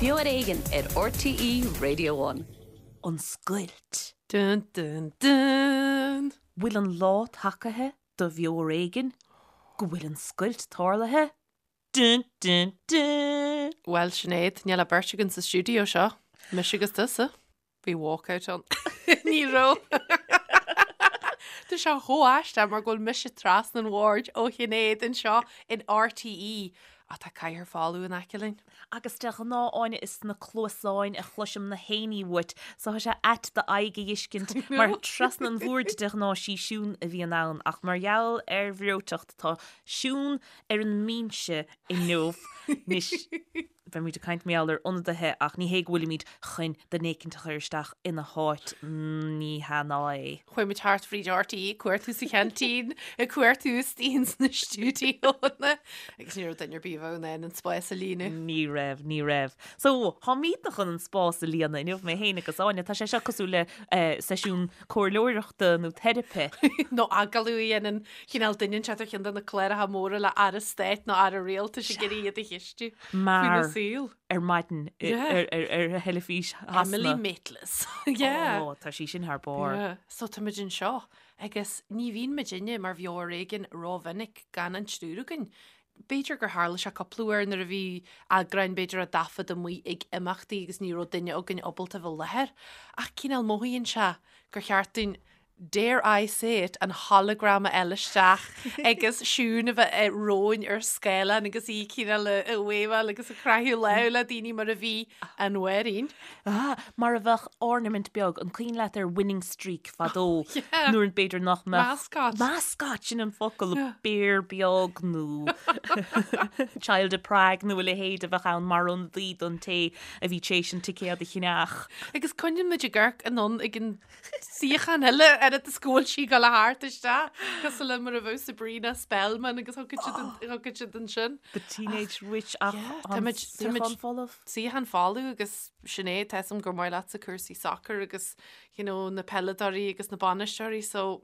Beo ar Éigean ar RTÉ Radio One. An scoilt. Dun dun dun! Bhfuil an lá tagaithe do Bheo ar Éigean go bhfuil an scoilt tarlaithe? Dun dun dun! Bhuel, Sinéad, níl ach beirt againn sa stiúideo seo, mise agus tusa. Bhí walkout ann. Ní raibh. Tá sé chomh aisteach mar go bhfuil mise trasna an bhoird ó Shinéad anseo in RTÉ ach tá cathaoir folamh in aice linn. Agus de ghnáth, Áine, is sna cluasáin a chloisim na héinní uait, so tá sé ait d'aghaidh a fheiscint mar trasna an bhoird de ghnáth sí Siún a bhíonn ann ach mar gheall ar bhreoiteacht tá Siún ar an mbinse inniu. Anois. Beimid ag caint mar gheall ar ionadaithe ach ní hé go bhfuilimid chun duine éicint a chur isteach ina háit, ní hea ná é. Chuaigh muid thart fríd RTÉ ag cuartú sa cheaintín, ag cuartú istigh ins na stiúidíónna agus ní raibh duine ar bith a bheadh in ann an spás a líonadh. Ní raibh, ní raibh. So, táimidne chun an spás a líonadh inniu, mé féin agus Áine. Tá sé seo cosúil le seisiún comhairleoireachta nó teiripe. Nó agallamh a dhéanann cineál duine inteacht ar cheann de na cláracha móra le Aire Stáit nó Aire Rialtais ag iarraidh iad a cheistiú faoina Mar saol. ar maidin ar theilifís Shasana. Emily Maitlis. Yeah. Ó, tá sí sin thar barr. Yeah. So táimid anseo agus ní bhíonn muidinne mar Bheo ar Éigean rómhinic gan an triúr againn. B'fhéidir gur tharla sé cúpla uair nuair a bhí eagráin b'fhéidir á dtaifead amuigh ag imeachtaí agus ní raibh duine againn ábalta a bheith i láthair. Ach cineál mothaíonn sé gur cheart dúinn dare I say it, an hologram a fháil isteach agus Siún a bheith romhainn ar scáileán agus í cineál ag wave-áil agus ag croitheadh lámh le daoine mar a bhí an Mháirín. Ah, mar a bheadh ornament beag, an cuimhin leat ar Winning Streak fadó Yeah. nuair b'fhéidir nach mbeadh Mascot. Mascot, sin an focal, béar beag nó Child of Prague nó a leithéid a bheadh ann mar ionadaí don té a bhí tar éis an ticéad a cheannach. Agus coinníonn muid ag amharc anonn ag an suíochán eile oiread is go bhfuil sí ag dul thart isteach cosúil le mar a bheadh Sabrina Spellman agus thiocfadh siad an- thiocfadh siad ansin. The Teenage Witch ach Yeah, an táimid- táimid- suíochán folamh. Suíochán folamh agus Sinéad, tá a fhios agam gur maith leatsa cúrsaí sacair agus you know, na peileadóirí agus na bainisteoirí so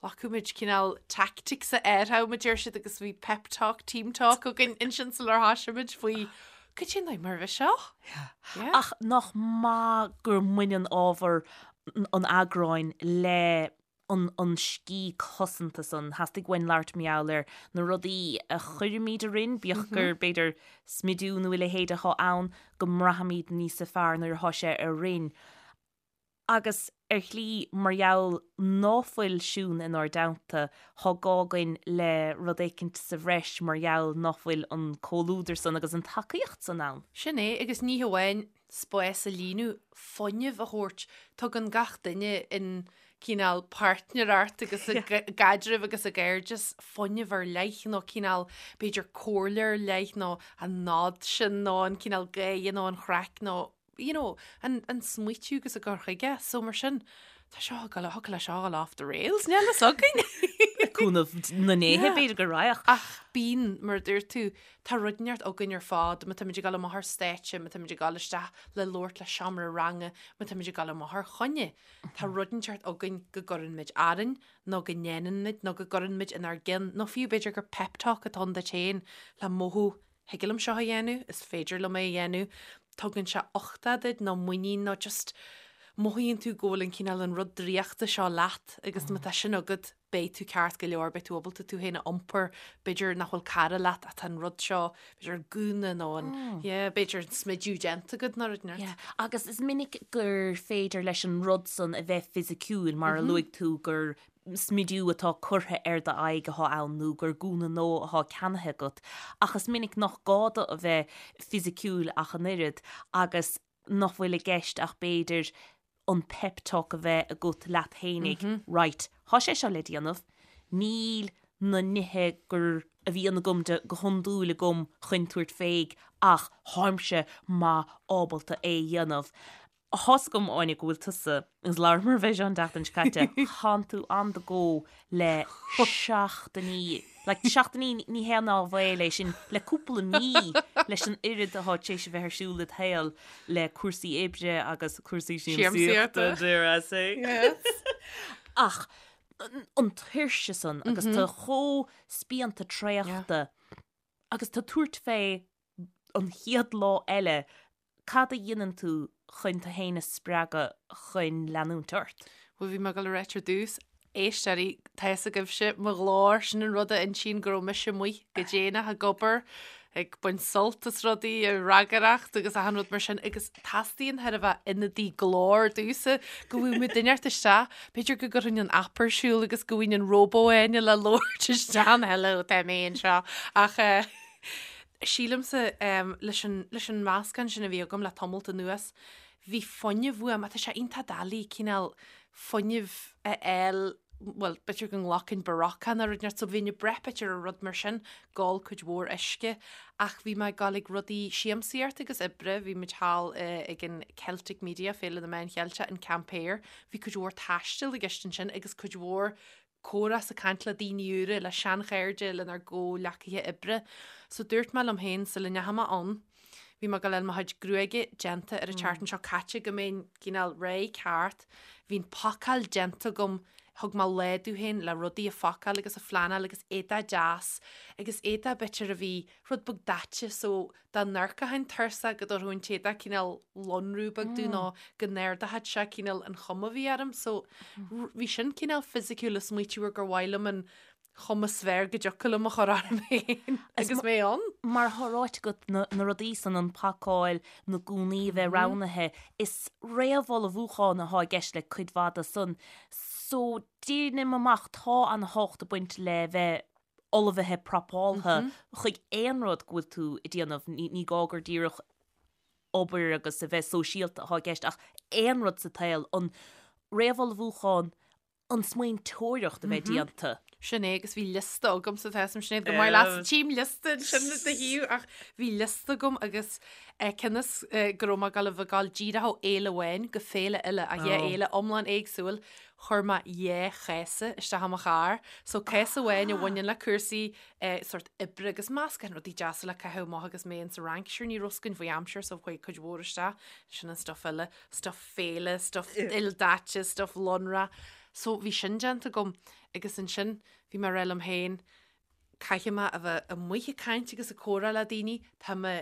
ghlacadh muid cineál tactics a airtheadh muid ar siad agus bhí pep talk, team talk againn ansin sular thoisigh muid faoi Cad é an mar a bheith seo? Yeah. Ach nach maith gur mbaineann ábhar an eagráin le an an scíth cosanta san. Theastaigh uainn labhairt mar gheall ar na rudaí a chuirimid orainn, bíodh gur b'fhéidir smidiú nó a leithéid atá ann, go mbraithimid níosa fearr nuair atá sé orainn. Agus ar shlí, mar gheall ná fuil Siún inár dteannta, thá gá againn le rud éicint sa bhreis mar gheall ná fuil an comhluadar san agus an tacaíocht san ann. Sin é, agus ní hamháin spás a líonadh, fuinneamh a thabhairt. Tugann gach duine in cineál páirtnéireacht agus i gcaidreamh agus i gcairdeas fuinneamh ar leith nó cineál b'fhéidir comhairle ar leith nó an nod sin nó an cineál gáire nó an chraic nó you know, an, an smaoitiú agus an cur chuige, so mar sin, tá seo ag dul, thiocfadh le seo a dhul off the rails, níl fhios againn. Le cúnamh na ndéithe, b'fhéidir go raghadh. Ach bíonn, mar a dúirt tú, tá rud inteacht againn ar fad, má táimid ag dul amach ar stáitse, má táimid ag dul isteach le labhairt le seomra ranga, má táimid ag dul amach ar choinne, tá rud inteacht againn go gcuireann muid orainn, nó go ndéanann muid, nó go gcuireann muid inár gceann, nó fiú b'fhéidir gur pep talk atá ann duit féin le mothú Thig liom seo a dhéanamh, is féidir liom é a dhéanamh, tugann sé uchtach duit nó muinín nó just mothaíonn tú go bhfuil an cineál an rud draíochta seo leat agus má tá sin agat beidh tú ceart go leor, beidh tú ábalta tú féin a iompar, b'fhéidir nach bhfuil cara leat ach tá an rud seo, b'fhéidir an gúna nó an, yeah, b'fhéidir an smidiú déanta agat nó rud inteacht. Yeah, agus is minic gur féidir leis an rud san a bheith fisiciúil mar a luaigh tú gur smidiú atá curtha ar d'aghaidh atá ann nó gur gúna nua atá ceannaithe agat, ach is minic nach gá do a bheith fisiciúil ach an oiread agus nach bhfuil i gceist ach b'fhéidir an pep talk a bheith agat leat fhéinig, right, thá sé seo le déanamh, níl na nithe gur a bhíonn agam de go hiondúil agam chun tabhairt fé ach tháimse maith ábalta é a dhéanamh. Tá's agam, Áine, go bhfuil tusa, agus labhramar fé seo an tseachtain seo caite, thánn tú on the go le seachtainí, like seachtainí ní haon áibhéil é sin, le cúpla mí leis an oiread atá tar éis a bheith ar siúl id shaol le cúrsaí oibre agus cúrsaí siamsaíochta, dare I say. Yes. Ach an tuirse san agus tú chomh spíonta traochta agus tú ag tabhairt fé an chéad lá eile. Cad a dhéanann tú chun tú féin a spreagadh chun leanúint ort? Bhuel, bhí mé ag dul a ráit ar dtús, éisteoirí, tá fhios agaibhse, mo ghlór, sin an rud a insíonn go raibh mise amuigh go déanach ag obair, ag baint sult as rudaí, ag ragaireacht agus achan rud mar sin agus teastaíonn chóir a bheith ionadaí glóir domhsa go bhfaighidh mé duine inteacht isteach, b'fhéidir go gcuirfinn an app ar siúl agus go bhfaighinn an róbó Áine le labhairt isteach an hello tá mé anseo ach eh, sílimse leis an leis an meascán sin a bhí agam le tamalt anuas, bhí fuinneamh uaim, tá sé iontach doiligh cineál fuinneamh a fháil, bhuel, b'fhéidir go nglacfainn Berocca nó rud inteacht, so bhínn ag brath b'fhéidir ar rud mar sin, ag ól cuid mhór uisce, ach bhí mé ag dul ag rudaí siamsaíochta agus oibre, bhí muid thall ag an Celtic Media, Féile na Meán Cheilteach, an Camp Air, bhí cuid mhór taistil i gceist ansin agus cuid mhór comhrá 's ag caint le daoine úra, le seanchairde, lenár gcomhghleacaithe oibre. So dúirt mé liom féin sula ndeachaigh mé ann, bhí mé ag dul a fháil mo chuid gruaige déanta ar an tseachtain seo caite go mbeinn cineál réidh ceart. Bhí an phacáil déanta agam, thug mé lá domh féin le rudaí a phacáil agus a phleanáil agus éadach deas agus éadach b'fhéidir a bhí rud beag daite so dá n-amharcfainn tuirseach go dtabharfadh an t-éadach cineál lonrú beag domh nó go n-ardódh sé cineál an chuma a bhí orm. So bhí sin cineál fisiciúil ag smaoitiú ar gur mhaith liom an chuma is fearr go dtiocfadh liom a chur orm féin agus mé ann. Mar atá ráite agat, na rudaí san, an phacáil, na gúnaí a bheith roghnaithe, is réamhullmhúchán atá i gceist le cuid mhaith de san. So déanaim amach, tá an-tábhacht ag baint le bheith ullmhaithe prapáltha chuig aon rud go bhfuil tú ag déanamh, ní gá gur díreach obair agus a bheith sóisialta atá i gceist ach aon rud sa tsaol, an réamhullmhúchán, an smaointeoireacht a bheith déanta. Sin é agus bhí liosta agamsa tá fhios a'm Sinéad go maith leat tchím liosta ansin i do thaobh ach bhí liosta agam agus cionn is go raibh mé ag dul a bheith ag dul díreach ó fhéile amháin go féile eile ach dhá fhéile iomlán éagsúil Chuir mé dhá chéasa isteach i mo charr. So céasa amháin a bhaineann le cúrsaí eh, sort oibre agus meascán rudaí deasa le caitheamh amach agus mé insa Fhrainc. Sure ní raibh fhios againn faoi aimsir so chuaigh cuid mhór isteach. Sin an stuff eile, stuff féile, stuff ildaite, stuff lonrach. So bhí sin déanta agam agus ansin bhí mé ag rá liom féin caithfidh mé a bheith amuigh ag caint agus ag comhrá le daoine, tá mé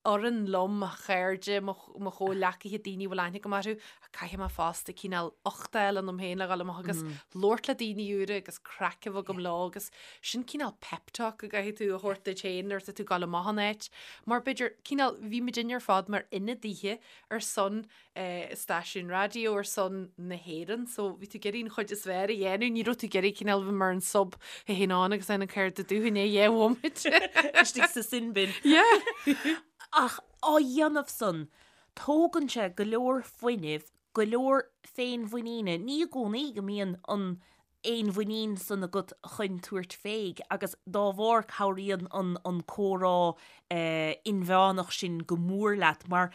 fhoireann liom, mo chairde, mo chomhghleacaithe, daoine a bhfuil aithne agam orthu, ach caithfidh mé fosta cineál ucht a fháil ionam féin le dhul amach agus labhairt le daoine úra agus craic a bheith agam leo agus sin cineál pep talk a gcaithfidh tú a thabhairt duit féin nuair atá tú ag dul amach in áit. Mar b'fhéidir, cineál, bhí muidinne ar fad mar ionadaithe ar son stáisiún raidió ar son na hÉireann so bhí tú ag iarraidh an chuid is fearr a dhéanamh, ní raibh tú ag iarraidh cineál bheith mar an sub a théann ann agus an céard a dúinn é dhé bhomaite. Istigh sa sin bin. Yeah. Ach á dhéanamh san, tógann sé go leor fuinnimh, go leor féinmhuiníne, ní i gcónaí go mbíonn an fhéinmhuinín san agat chun tabhairt féig agus dá bharr cabhraíonn an an comhrá inmheánach sin go mór leat mar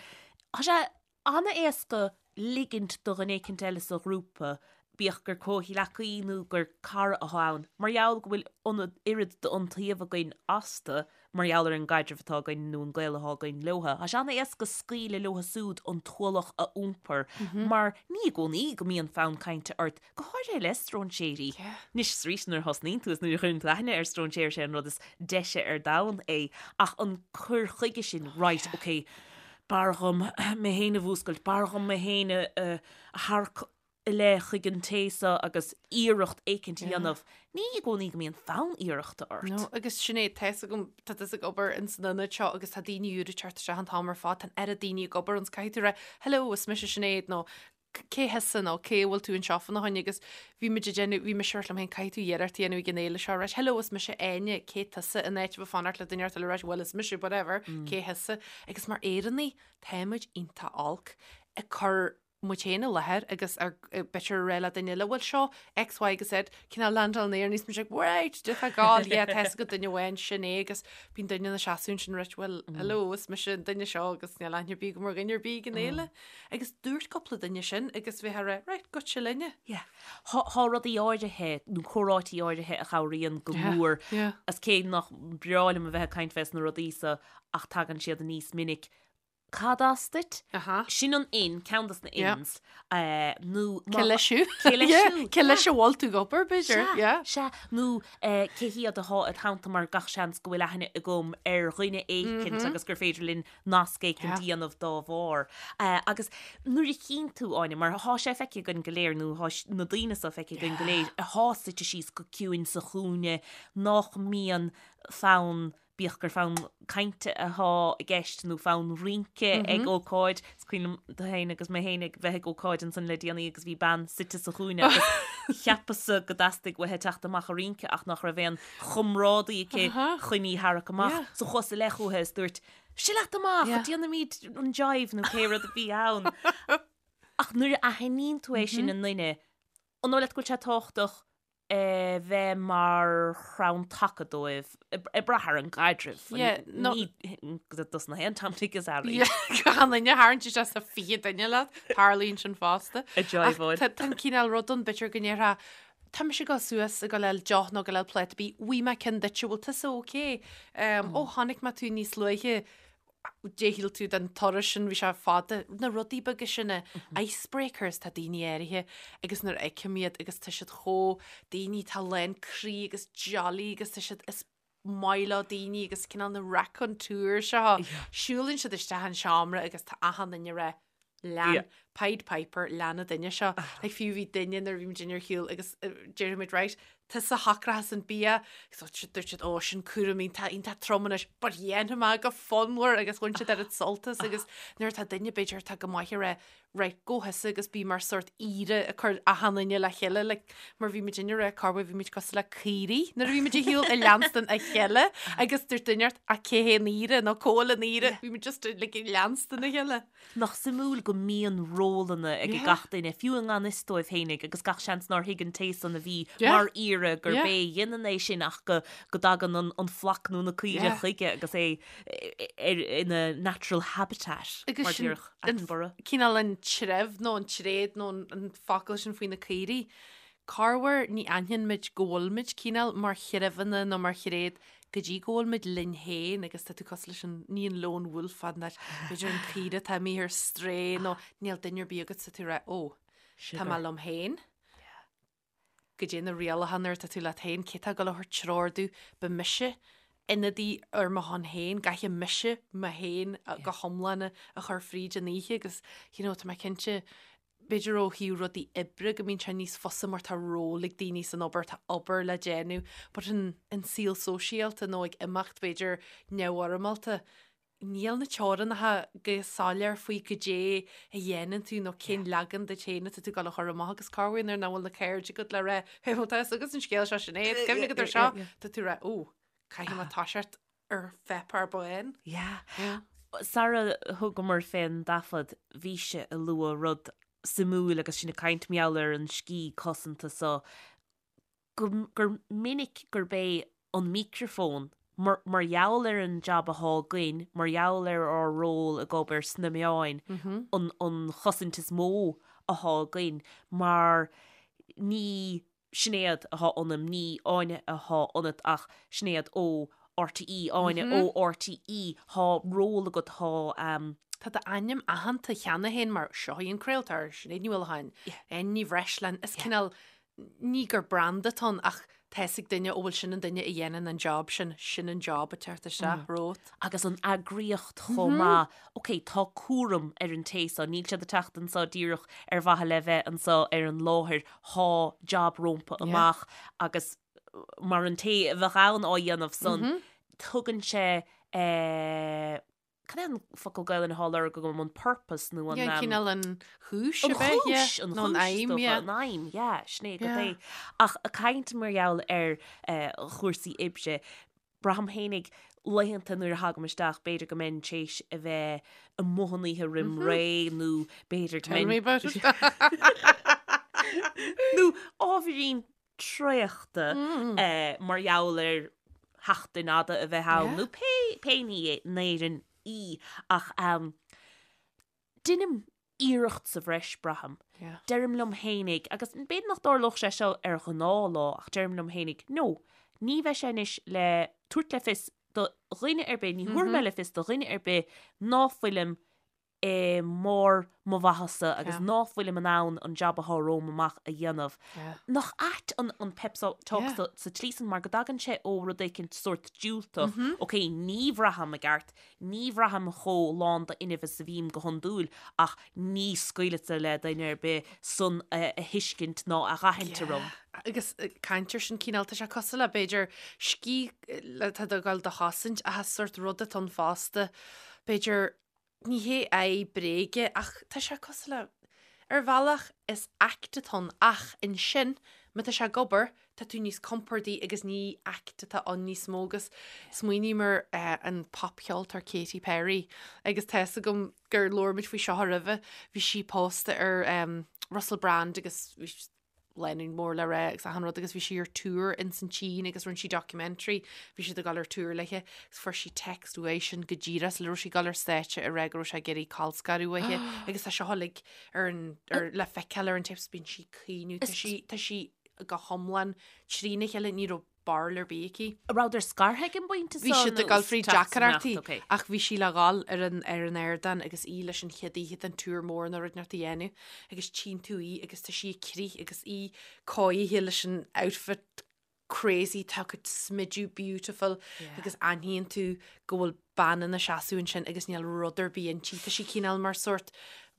tá sé an-éasca ligint do dhuine éicint eile sa ghrúpa, bíodh gur comhghleacaí nó gur cara atá ann, mar gheall go bhfuil an oiread d'iontaoibh againn astu mar gheall ar an gcaidreamh atá againn nó an gaol atá againn leotha. Tá sé an-éasca scaoileadh leotha súd an t-ualach a iompar mar ní i gcónaí go mbíonn fonn cainte ort, go háirithe le stróinséirí. Anois is arís nuair a thosnaíonn tú is nuair a chuireann tú aithne ar stróinséir sé an rud is deise ar domhan é ach an cur chuige sin, right, ok, b'fhearr dhom mé féin a mhúscailt, b'fhearr dhom mé féin a tharrac i leith chuig an té seo agus iarracht éicint a dhéanamh. Ní i gcónaí go mbíonn fonn iarrachta ort. No, agus sin é, tá fhios agam, tá tusa ag obair ins an ionad seo agus tá daoine úra ag teacht isteach an t-am ar fad, tá an oiread daoine ag obair ann, 's caithfidh tú rá, hello, is mise Sinéad, nó cé thusa, nó cé a bhfuil tú anseo fána choinne, agus bhí muid ag déanamh, bhí mise ag rá liom féin, caithfidh tú iarracht a dhéanamh ag an fhéile seo, right, hello, is mise Áine, cé tusa, in áit a bheith ag fanacht le duine eile a rá, well, is mise, whatever, cé thusa, agus mar Éireannaigh, tá muid iontach olc ag cur muid féin i láthair agus ar b'fhéidir a rá le duine eile, bhuel seo X, Y agus Z, cineál landáil in aer níos muid like, right, do tá gáil, yeah, tá fhios agat duine amháin, sin é agus bíonn duine ina seasamh ansin right, well, hello, is mise an duine seo agus níl aithne ar bith agam ar dhuine ar bith ag an fhéile. Agus dúirt cúpla duine sin agus bheith a rá, right, goitse linne. Yeah. Tá rudaí áirithe nó comhráití áirithe a chabhraíonn go mór as cé nach breá liom a bheith ag caint fés na rudaí so ach tagann siad aníos minic. Cad as duit? Sin an in, ceann dos na ins. Nó Cé leis thú? Cé leis thú? Cé leis a bhfuil tú ag obair, b'fhéidir? Sea, nó cé hiad atá id theannta mar gach seans go bhfuil aithne agam ar dhuine éicint agus gur féidir linn nasc éicint a dhéanamh dá bharr. Agus nuair a chíonn tú, Áine, mar thá sé feicthe againn go léir, nó thá na daoine so feicthe againn go léir, athá suite síos go ciúin sa chúinne, nách mbíonn fonn bíodh gur fonn cainte athá i gceist nó fonn rince ag ócáid. Is cuimhin liom tú féin agus mé féin ag bheith ag ócáid ansan le déanaí agus bhí bean suite sa chúinne agus cheapas-sa go dteastaigh uaithi teacht amach a rince ach nach raibh aon chomrádaí aici chun í tharrac amach. So chuas i leith chúithi is dúirt, Seo leat amach, déanfaimid an jive nó pé rud a bhí ann. Ach nuair a aithníonn tú é sin i nduine, an dóigh leat go bhfuil sé tábhachtach a bheith mar chrann taca dóibh, ag brath ar an gcaidreamh. Ní dos na haon Tom Dick is Harry. Gan duine a tharraingt isteach sa 20 duine leat, tarlaíonn sin fosta. A jive-áil. Tá an cineál rud ann, b'fhéidir go ndéarfá, tá mise ag dul suas ag dul le deoch nó ag dul le pláta bídh, bhfuair mé ceann duit, bhfuil tusa ok? Ó, chonaic mé tú níos luaithe, Dé shíl tú den turas sin, bhí sé fada, na rudaí beaga sin, na icebreakers, tá daoine áirithe agus nuair a fheicim iad agus tá siad chomh, daoine atá lán croí agus jolly agus tá siad, is maith leo daoine agus cineál na raconteur seo, siúlann siad isteach an seomra agus tá achan duine ag rá, Lean Pied Piper, lean an duine seo. Like fiú bhí duine nuair a bhí muid ar shiúl agus déarfaidh muid right, tusa a shocróchas an bia, so dúirt siad ó sin cúram iontach iontach trom anois, but dhéanfaidh mé go fonnmhar agus bhain siad oiread sult as agus nuair atá duine b'fhéidir atá go maith ag rá right, go thusa agus bí mar sort aoire ag cur achan duine le chéile like mar bhí muid ag rá corruair bhí muid cosúil le caoirigh nuair a bhí muid ar shiúl ag leanstan a chéile agus dúirt duine ort ach cé hé an aoire nó cá bhfuil an aoire bhí muid just like ag leanstan a chéile. Nach suimiúil go mbíonn rólanna ag gach duine, fiú i ngan fhios dóibh fhéinig, agus gach seans nár thuig an té san a bhí mar aoire gurb é a dhéanann é sin ach go dtagann an flock nó na caoire chuige agus é ina natural habitat, mar déarfadh Attenborough. Cineál an treibh nó an tréad nó an focal sin faoi na caoirigh. Corruair ní aithníonn muid go bhfuil muid cineál mar threibheanna nó mar thréad go dtí go bhfuil muid linn féin agus tá tú cosúil leis an, ní an lone wolf fad an áit, b'fhéidir an caoire atá imithe ar strae nó níl duine ar bith agat tá tú ag rá, ó, tá mé liom féin. Goidé na rialacha nuair atá tú leat féin, cé tá ag dul a thabhairt treoir domh, beidh mise ionadaí ar mo shon féin, caithfidh mise mé féin go hiomlán a chur fríd an oíche agus you know, tá mé cinnte B'fhéidir ó thaobh rudaí oibre go mbíonn sé níos fusa mar tá ról ag daoine san obair, tá obair le déanamh, but an an saol sóisialta nó ag imeacht b'fhéidir neamhfhoirmeálta, níl na teorainneacha go soiléir faoi goidé a dhéanann tú nó cén leagan duit féin atá tú ag dul a chur amach agus corruair nuair nach bhfuil na cairde agat le rá hey bhfuil tá fhios agat an scéal seo Sinéad, cuimhnigh agat ar seo, tá tú ag rá ó, caithfidh mé toiseacht ar pháipéar bán. Yeah. Yeah. Sara thugamar fén dtaifead, bhís-se ag lua rud suimiúil agus sinn ag caint mar gheall ar an sciath cosanta so, go, gur minic gurb é an micreafón, mar, mar gheall ar an jab athá againn, mar gheall ar ár ról ag obair sna meáin, an, an chosaint is mó athá againn, mar ní Sinéad athá ionam, ní Áine athá ionat ach Sinéad ó RTÉ, Áine ó RTÉ, thá ról agat, thá. Tá d'ainm aitheanta cheana féin mar seo í an craoltóir, Sinéad Ní Uallacháin, Áine Ní Bhreisleáin, is cineál, ní gur branda atá ann ach tá fhios ag duine ó bhfuil sin an duine a dhéanann an job sin, sin an job ag teacht isteach romhat. Agus an eagraíocht chomh maith, ok, tá cúram ar an té so, níl siad ag teacht anso díreach ar mhaithe le bheith anso ar an láthair, thá jab rómpa amach agus mar an té a bheadh ann á dhéanamh san, tugann sé cad é an focal Gaelainne athá á lorg agam, an purpose nó an. Yeah, cineál an chúis a bheith, yeah, nó an aidhm, yeah. An aidhm, yeah, sin é go é. Ach ag caint mar gheall ar chúrsaí oibre, Braithim fhéinig laethanta nuair a thagaim isteach, b'fhéidir go mbeinn tar éis a bheith amuigh an oíche roim ré nó b'fhéidir go mbeinn... Tell me about it. Nó ábhairín traochta mar gheall ar sheachtain fhada a bheith ann nó pé pé ní é in Éirinn í ach deinim iarracht sa bhreis, braithim. Deirim liom fhéinig, agus b'fhéidir nach dtarlódh sé seo ar ghnáthlá, ach deirim liom fhéinig, no, ní bheidh sé anois le tabhairt le fios do dhuine ar bith, ní thabharfaidh mé le fios do dhuine ar bith ná fuilim i mbarr mo mhaitheasa agus ná fuilim in ann an jab athá romham amach a dhéanamh. Nach ait an pep talk sa tslí san mar go dtagann sé ó rud éicint sórt diúltach, ok, ní bhraithim i gceart, ní bhraithim chomh lán d'fhuinneamh is a bhím go hiondúil ach ní scaoilfeadsa le duine ar bith san a thuiscint ná a dh'aithint orm. Agus caint ar sin cineál, tá sé cosúil le b'fhéidir sciath atá ag dul do chosaint ach is sórt rud atá ann fosta, b'fhéidir Ní hé aghaidh bréige ach tá sé cosúil le, ar bhealach is act atá ann ach ansin má tá sé ag obair tá tú níos compordaí agus ní act atá ann níos mó agus smaoiním ar an popcheoltóir Katy Perry agus tá fhios agam gur labhair muid faoi seo roimhe, bhí sí pósta ar Russell Brand agus bhí lánúin mór le rá agus achan rud agus bhí sí ar tour in san tSín agus rinne sí documentary, bhí siad ag dul ar tour léithe agus fuair sí text uaidhsean go díreach sula raibh sí ag dul ar stáitse ag rá go raibh sé ag iarraidh colscaradh uaithi agus tá seo uilig ar an, ar, le feiceáil ar an tapes bíonn sí ag caoineadh, tá sí, tá sí go hiomlán trína chéile, ní raibh barúil ar bith aici. An rabhadar scartha ag an bpointe seo? Bhí siad ag dul fríd deacrachtaí ach bhí sí le dhul ar an ar an ardán agus í leis an chéad oíche den tour mór nó rud inteacht a dhéanamh agus tchíonn tú í agus tá sí ag crith agus í cóirithe leis an outfit crazy tá a cuid smidiú beautiful agus aithníonn tú go bhfuil bean ina seasamh ansin agus níl rud ar bith inti. Tá sí cineál mar sórt,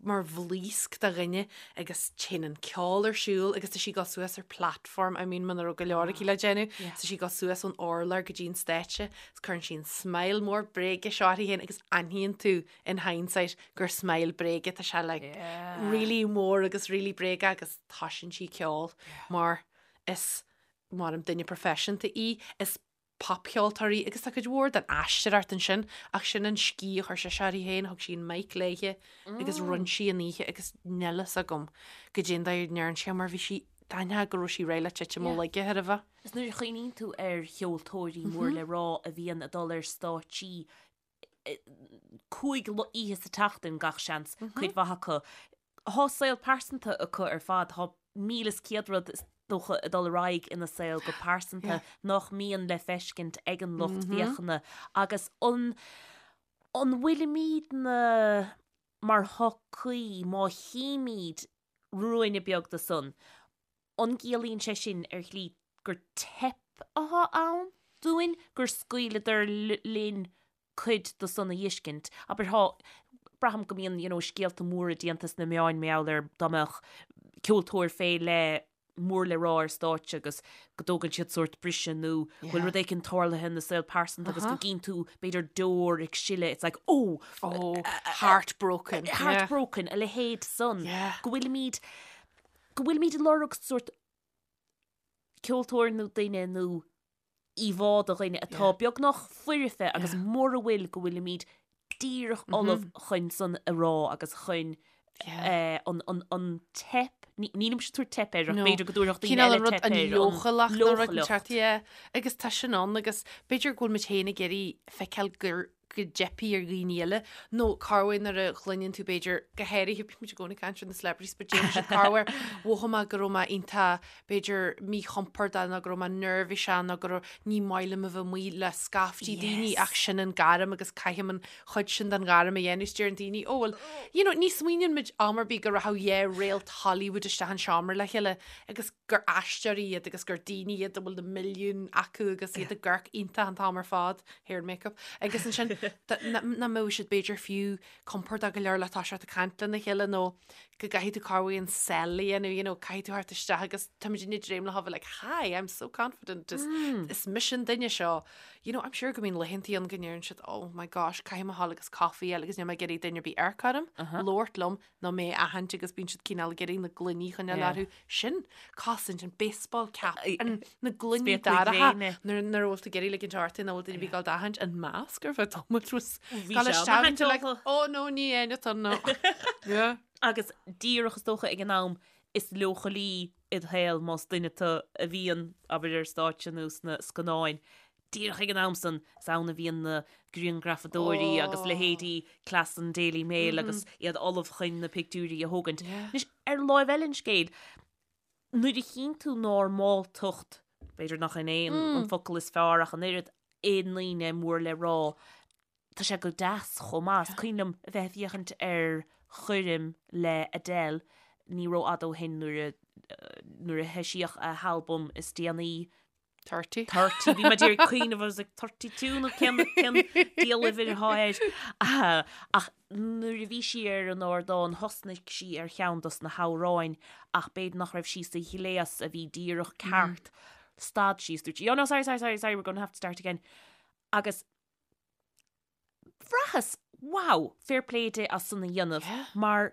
mar bhlaosc de dhuine agus téann an ceol ar siúl agus tá sí ag dul suas ar platform, I mean muna raibh go leor aici le déanamh, tá sí ag dul suas ón urlár go dtí an stáitse agus cuireann sí an smile mór bréige seo uirthi féin agus aithníonn tú in hindsight gur smile bréige, tá sé like really mór agus really bréige agus toisíonn sí ceol mar is mar duine proifisiúnta í, is popcheoltóir í agus tá cuid mhór den aisteoireacht ansin ach sin an sciath a chuir sise uirthi féin, thug sí an mic léithe agus rinne sí an oíche agus níl fhios agam goidé an dóigh a ndearna sí mar bhí sí, d'aithneofá go raibh sí réidh le titim ó laige chóir a bheith. Is nuair a chuimhníonn tú ar cheoltóirí mór le rá a bhíonn ag dul ar stáitsí 5 oíche sa tseachtain gach seans, cuid mhaith acu. Thá saol pearsanta acu ar fad, thá 1,100 rud is dócha ag dul ar aghaidh ina saol go pearsanta nach mbíonn le feiscint ag an lucht féachana agus an an bhfuilimidne mar shochaí má chímid ruainne beag de san, An gciallaíonn sé sin ar shlí gur teip atá ann dúinn, gur scaoileadar linn cuid de san a fheiscint? Abair, thá, braithim go mbíonn, you know, scéalta móra déanta sna meáin mar gheall ar dá mbeadh ceoltóir fé leith mór le rá ar stáitse agus go dtógann siad sórt briseadh nó go bhfuil rud éicint tarlaithe ina saol pearsanta agus go gcíonn tú b'fhéidir deoir ag sileadh, it's like, oh! Oh, heartbroken. Heartbroken, a leithéid san. Go bhfuilimid go bhfuilimid ag lorg sórt ceoltóir nó duine nó íomhá de dhuine atá beagnach foirfe agus mura bhfuil go bhfuilimid díreach ullamh chun san a rá agus chun an teip, nílimse ag tabhairt teip air ach b'fhéidir go dtabharfadh daoine eile teip air, an leochaileacht nó rud inteacht, yeah. Agus tá sin ann agus b'fhéidir go bhfuil muid féin ag iarraidh feiceáil gur go dteipfidh ar dhaoine eile, nó corruair nuair a chluineann tú b'fhéidir, go háirithe, bíonn muid i gcónaí ag caint ar na celebrities, but déanann siad corruair, mhothaigh mé go raibh mé iontach, b'fhéidir, míchompordach nó go raibh mé neirbhíseach nó go raibh, ní maith liom a bheith amuigh le scaiftí daoine ach sin an gairm agus caithim an chuid sin den ghairm a dhéanamh, is deireann daoine, oh well, you know, ní smaoiníonn muid am ar bith go rachadh dhá réalt Hollywood isteach an seomra le chéile agus gur aisteoirí iad agus gur daoine iad a bhfuil na milliúin acu agus iad ag amharc iontach an t-am ar fad, hair and makeup, agus ansin nach mbeadh siad b'fhéidir fiú compordach go leor le toiseacht ag caint lena chéile nó go gcaithfidh tú corruair an sell a dhéanamh, you know, caithfidh tú theacht isteach agus táimid ag dréim le bheith like, hi, I'm so confident, is, is mise an duine seo. You know, I'm sure go mbíonn laethantaí ann go ndeireann siad, oh my gosh, caithfidh mé a ghabháil agus coffee a fháil agus níl mé ag iarraidh duine ar bith amharc orm, labhairt liom, nó mé a aithint agus bíonn siad cineál ag iarraidh na gloiní a choinneáil orthu. Sin cosaint, an baseball cap, an, na gloiní dorcha nuair nuair a bhfuil tú ag iarraidh ligint ort nach bhfuil duine ar bith ag gabháil d'aithint, an masc ar feadh tamaill was Bhí gabháil sé isteach and you're like, an-tógtha. oh no, ní aon atá no. Yeah. Agus díreach is dócha ag an am is leochailí id shaol más duine tú a bhíonn, abair ar stáitse nó sna scannáin, Díreach ag an am san, is ann a bhíonn na grianghrafadóirí agus leithéidí cleas an Daily Mail agus iad ullamh chun na pictiúirí a thógaint. Anois, ar láimh eile an scéil, nuair a chíonn tú normáltacht, b'fhéidir nach in é an focal is fearr ach an oiread, i ndaoine mór le rá. Tá sé go deas chomh maith. Is cuimhin liom a bheith ag féachaint ar choirm le Adele ní rófhada ó shin nuair a nuair a heisíodh a halbam is déanaí. 30. 30. Bhí mé d'iarraidh cuimhneamh I was like 32 nó cén cén diabhal uimhir atá air. Ach nuair a bhí sí ar an ardán thosnaigh sí ar cheann dos na hamhráin ach b'fhéidir nach raibh sí sa ghléas a bhí díreach ceart. Stad sí is dúirt sí, oh no sorry sorry sorry sorry we're going to have to start again. Agus bhraitheas, wow, fair play di as san a dhéanamh Yeah. mar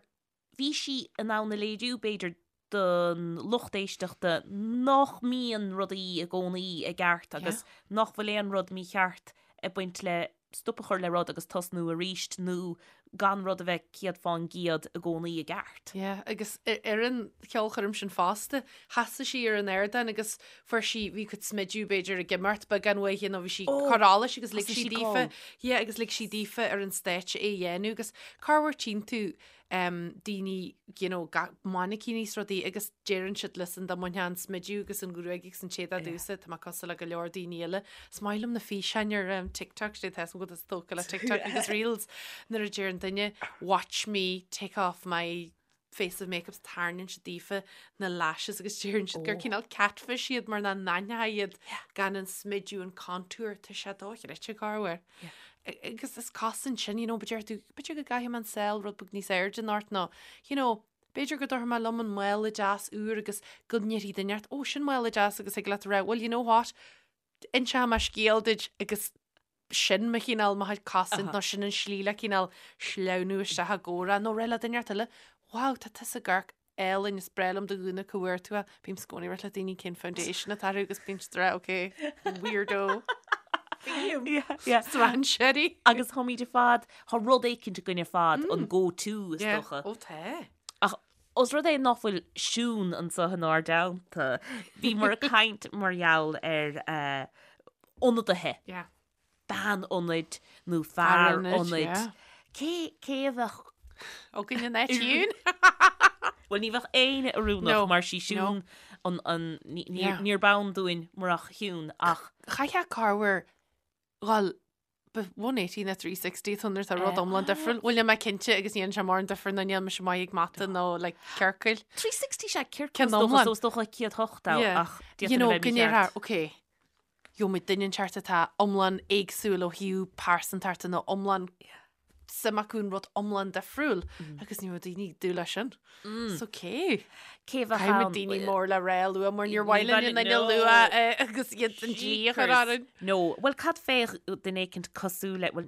bhí sí in ann a léiriú b'fhéidir don lucht éisteachta nach mbíonn rudaí i gcónaí i gceart agus nach bhfuil aon rud mícheart ag baint le stop a chur le rud agus tosnú arís nó gan rud a bheith 100% i gcónaí i gceart. Yeah, agus ar an cheolchoirm sin fosta, sheasaigh sí ar an ardán agus fuair sí, bhí cuid smidiú b'fhéidir ag imeacht beagán uaithi nó bhí sí ag cur allais agus lig sí daofa, yeah, agus lig sí daofa ar an stáitse é a dhéanamh agus corruair tchíonn tú um, daoine, you know, mainicíní is rudaí agus deireann siad listen dá mbainfeá an smidiú agus an ghruaig agus an t-éadach domhsa, tá mé cosúil le go leor daoine eile. Is maith liom na físeáin ar um, TikTok, sé tá go tógtha le TikTok agus Reels nuair a deireann duine watch me take off my face of makeup tarraingíonn siad daofa na lashes agus deireann siad gur oh. cineál catfish iad mar nach n-aithneofá iad gan an smidiú an contour tá sé dochreidte corruair. Agus is cosaint sin, you know, b'fhéidir tú, b'fhéidir go gcaithfidh mé an saol rud beag níos airde anocht nó, you know, b'fhéidir go dtabharfaidh mé liom an mála deas úr agus go ndéarfaidh duine ort, ó, sin mála deas agus thig leat a rá, well, you know what, inseoidh mé scéal duit agus sin mo chineál mo chuid cosaint nó sin an slí le cineál sleamhnú isteach i gcomhrá nó rá le duine ort eile, wow, tá tusa ag amharc álainn is breá liom do ghúna cá bhfuair tú é. Bím i gcónaí ag rá le daoine cén foundation atá orthu agus bíonn siad ag rá ok, weirdo. Strainséirí. Agus táimid ar fad, tá rud éicint againn ar fad, an go to is dócha. Ó tá. Ach os rud é nach bhfuil Siún anseo inár dteannta, bhíomar ag caint mar gheall ar ionadaithe. Yeah. bean ionaid nó fear ionaid. Cé cé a bheadh againn in áit Shiún? Bhuel ní bheadh éinne oiriúnach mar sí Siún an an níor b'ann dúinn murach Shiún ach. Chaithfeá corruair dhul 180 nó 360 tá nuair tá rud iomlán difriúil. Bhuel níl mé cinnte agus ní dhéanann sé mórán difear nó níl mise maith ag mata nó like ciorcail. 360 sé ciorcal is dócha so is dócha 108 ach You know, go ndéarfá, okay, gheobhaimid duine inteacht atá iomlán éagsúil ó thaobh pearsantachta nó iomlán suim acu in rud iomlán difriúil agus ní raibh daoine ag dúil leis sin. So cé? Cé bheadh Caithfidh ann? daoine mór le rá a lua mar níor mhaith linn a n-ainm a lua agus iad an dlí a chur orainn. No, bhuel cad fé duine éicint cosúil le, bhuel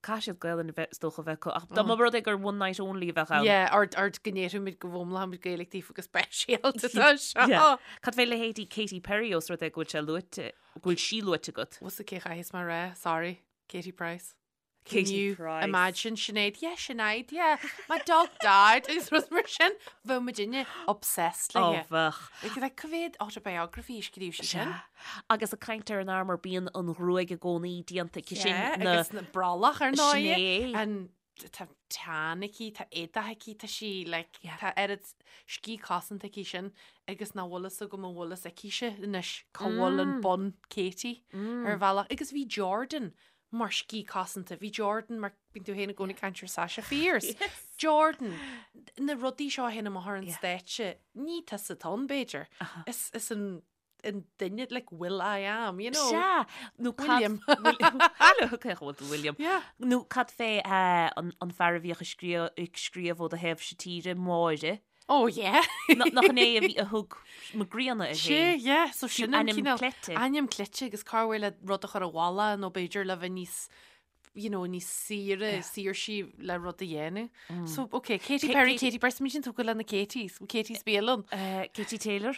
caithfidh siad Gaelainn a bheith is dócha a bheith acu ach dá mba rud é gur one night only a bheadh ann. Yeah, or or go ndéarfaimid go bhfoghlaimeoimid Gaeilge daofa go speisialta tá seo. Yeah. Cad fé leithéidí Katy Perry os rud é go bhfuil sé luaite, go bhfuil sí luaite agat? Bhfuil a fhios agat cé chaithfeas mé a rá, sorry, Katie Price. Can Katie you Price. imagine Sinéad? Yeah, Sinéad, yeah. My dog died. Agus rud mar sin, bheadh muidinne obsessed Ó léi. bheadh. Like, like, cá mhéad autobiography a scríobh sí sin? Sea. Agus ag caint ar an armour, bíonn an ghruaig i gcónaí déanta aici sin. Yeah, na- agus na brollach ar ndóigh. Sin é. An tá teann aici, tá éadach aici, tá sí like, Yeah. tá oiread scíth cosanta aici sin agus nach bhfuil fhios agam an bhfuil fhios aici-se anois cá bhfuil an bun Katie ar bhealach. Agus bhí Jordan mar scíth cosanta, bhí Jordan mar bíonn tú féin i gcónaí ag caint ar Sasha Fierce. Yes. Jordan, na rudaí seo a théann amach ar an Yeah. stáitse, ní tusa atá ann b'fhéidir. Is, is an an duine like Will I am, you know. Sea, nó cad... William. Hello, cé bhfuil tú William? Yeah. Nó cad fé eh, an, an fear a bhíodh ag scríobh, ag scríobh ó do thaobh-se tíre, Máire. Oh yeah. Na- Nach in é a bhí a thug Mac Grianna air Sé, féin. yeah, so sin an ainm cineál cleite. Ainm cleite agus corruair le rud a chur i bhfolach nó b'fhéidir le bheith níos you know, níos saoire, saoirsí le rud a dhéanamh. So, okay, Katy Ka- Perry, Katy- Katie Price, sin tógtha le na Katies, Katie's bialann. Eh, Katie Taylor.